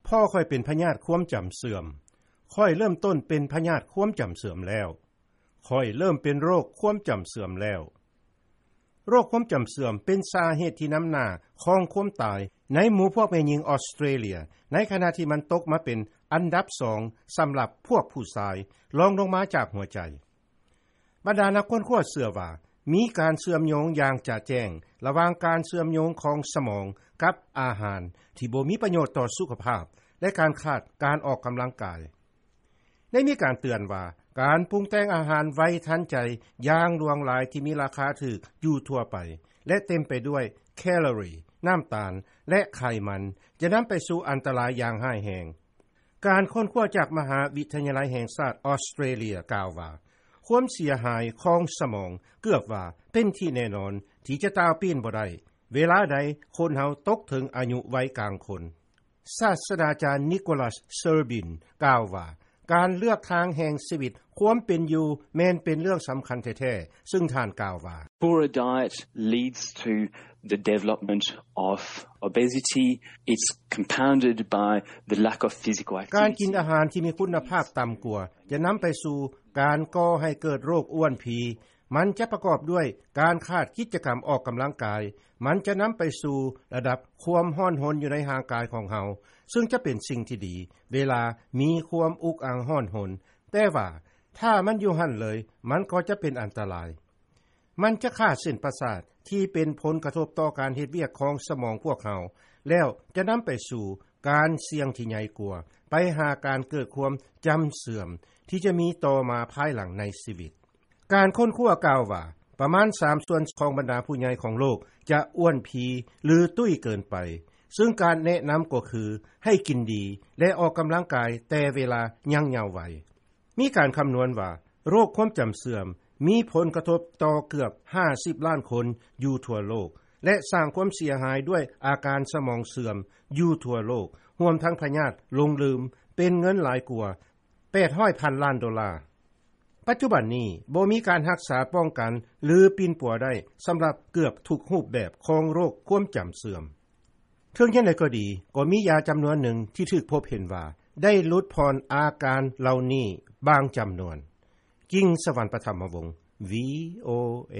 ພໍ່ຂ້ອຍເປັນພະຍາດຄວາມຈຳເສື່ອມ. ຂ້ອຍເລີ່ມຕົ້ນເປັນພະຍາດຄວາມຈຳເສື່ອມແລ້ວ. ຂ້ອຍເລີ່ມເປັນໂລກຄວາມຈຳເສື່ອມແລ້ວ. ໂລກຄວາມຈຳເສື່ອມເປັນສາເຫດທີ່ນຳໜ້າຂອງຄວາມຕາຍໃນໝູ່ພວກແມ່ຍິງອອສເຕຣເລຍ, ໃນຂະນະທີ່ມັນຕົກມາເປັນອັນດັບສອງສຳລັບພວກຜູ້ຊາຍ, ລອງລົງມາຈາກຫົວໃຈ. ບັນດານັກຄົ້ນຄວ້າເຊື່ອວ່າ ມີການເຊື່ອມໂຍງຢ່າງຈະແຈ້ງລະຫວ່າງການເຊື່ອມໂຍງຂອງສະໝອງກັບອາຫານທີ່ບໍ່ມີປະໂຫຍດຕໍ່ສຸຂະພາບ ແລະ ການຂາດການອອກກຳລັງກາຍ. ໄດ້ມີການເຕືອນວ່າ ການປຸງແຕ່ງອາຫານໄວທັນໃຈຢ່າງຫຼວງຫຼາຍທີ່ມີລາຄາຖືກຢູ່ທົ່ວໄປ ແລະ ເຕັມໄປດ້ວຍແຄລໍຣີ, ນ້ຳຕານ ແລະ ໄຂມັນ ຈະນຳໄປສູ່ອັນຕະລາຍຢ່າງຮ້າຍແຮງ. ການຄົ້ນຄວ້າຈາກມະຫາວິທະຍາໄລແຫ່ງຊາດອອສເຕຣເລຍກ່າວວ່າ ຄວາມເສຍຫາຍຂອງສະໝອງເກືອບວ່າເປັນທີ່ແນ່ນອນທີ່ຈະຕ່າວປີ້ນບໍ່ໄດ້ ເວລາໃດຄົນເຮົາຕົກເຖິງອາຍຸໄວກາງຄົນ. ສາດສະດາຈານ Nicholas Serbin ກ່າວວ່າ ການເລືອກທາງແຫ່ງຊີວິດຄວາມເປັນຢູ່ແມ່ນເປັນເລື່ອງສຳຄັນແທ້ໆ, ຊຶ່ງທ່ານກ່າວວ່າ Poorer diet leads to the development of obesity. It's compounded by the lack of physical activity. ການກິນອາຫານທີ່ມີຄຸນນະພາບຕ່ຳກວ່າ ຈະນຳໄປສູ່ການກໍ່ໃຫ້ເກີດໂລກອ້ວນພີ. ມັນຈະປະກອບດ້ວຍການຂາດກິດຈະກຳອອກກຳລັງກາຍ. ມັນຈະນຳໄປສູ່ລະດັບຄວາມຮ້ອນຮົນຢູ່ໃນຮ່າງກາຍຂອງເຮົາ, ຊຶ່ງຈະເປັນສິ່ງທີ່ດີເວລາມີຄວາມອຸກອັ່ງຮ້ອນຮົນ. ແຕ່ວ່າຖ້າມັນຢູ່ຫັ້ນເລີຍ, ມັນກໍຈະເປັນອັນຕະລາຍ. ມັນຈະຂ້າເສັ້ນປະສາດທີ່ເປັນຜົນກະທົບຕໍ່ການເຮັດວຽກຂອງສະໝອງພວກເຮົາ, ແລ້ວຈະນຳໄປສູ່ການສ່ຽງທີ່ໃຫຍ່ກວ່າ, ໄປຫາການເກີດຄວາມຈຳເສື່ອມທີ່ຈະມີຕໍ່ມາພາຍຫຼັງໃນຊີວິດ. ການຄົ້ນຄວ້າກ່າວວ່າ ປະມານສາມສ່ວນຂອງບັນດາຜູ້ໃຫຍ່ຂອງໂລກຈະອ້ວນພີ ຫຼື ຕຸ້ຍເກີນໄປ, ຊຶ່ງການແນະນຳກໍຄືໃຫ້ກິນດີ ແລະ ອອກກຳລັງກາຍແຕ່ເວລາຍັງເຍົາໄວ. ມີການຄຳນວນວ່າ ໂລກຄວາມຈຳເສື່ອມມີຜົນກະທົບຕໍ່ເກືອບຫ້າສິບລ້ານຄົນຢູ່ທົ່ວໂລກ ແລະ ສ້າງຄວາມເສຍຫາຍດ້ວຍອາການສະໝອງເສື່ອມຢູ່ທົ່ວໂລກ, ຮວມທັງພະຍາດຫຼົງລືມ, ເປັນເງິນຫຼາຍກວ່າແປດຮ້ອຍພັນລ້ານໂດລາ. ປັດຈຸບັນນີ້ບໍ່ມີການຮັກສາປ້ອງກັນ ຫຼື ປິ່ນປົວໄດ້ສຳລັບເກືອບທຸກຮູບແບບຂອງໂລກຄວາມຈຳເສື່ອມ. ເຖິງຢ່າງໃດກໍດີ, ກໍມີຢາຈຳນວນໜຶ່ງທີ່ຖືກພົບເຫັນວ່າໄດ້ຫຼຸດຜ່ອນອາການເຫຼົ່ານີ້ບາງຈຳນວນ. ກິ່ງສະຫວັນ ປະຖຳມະວົງ ວີໂອເອ.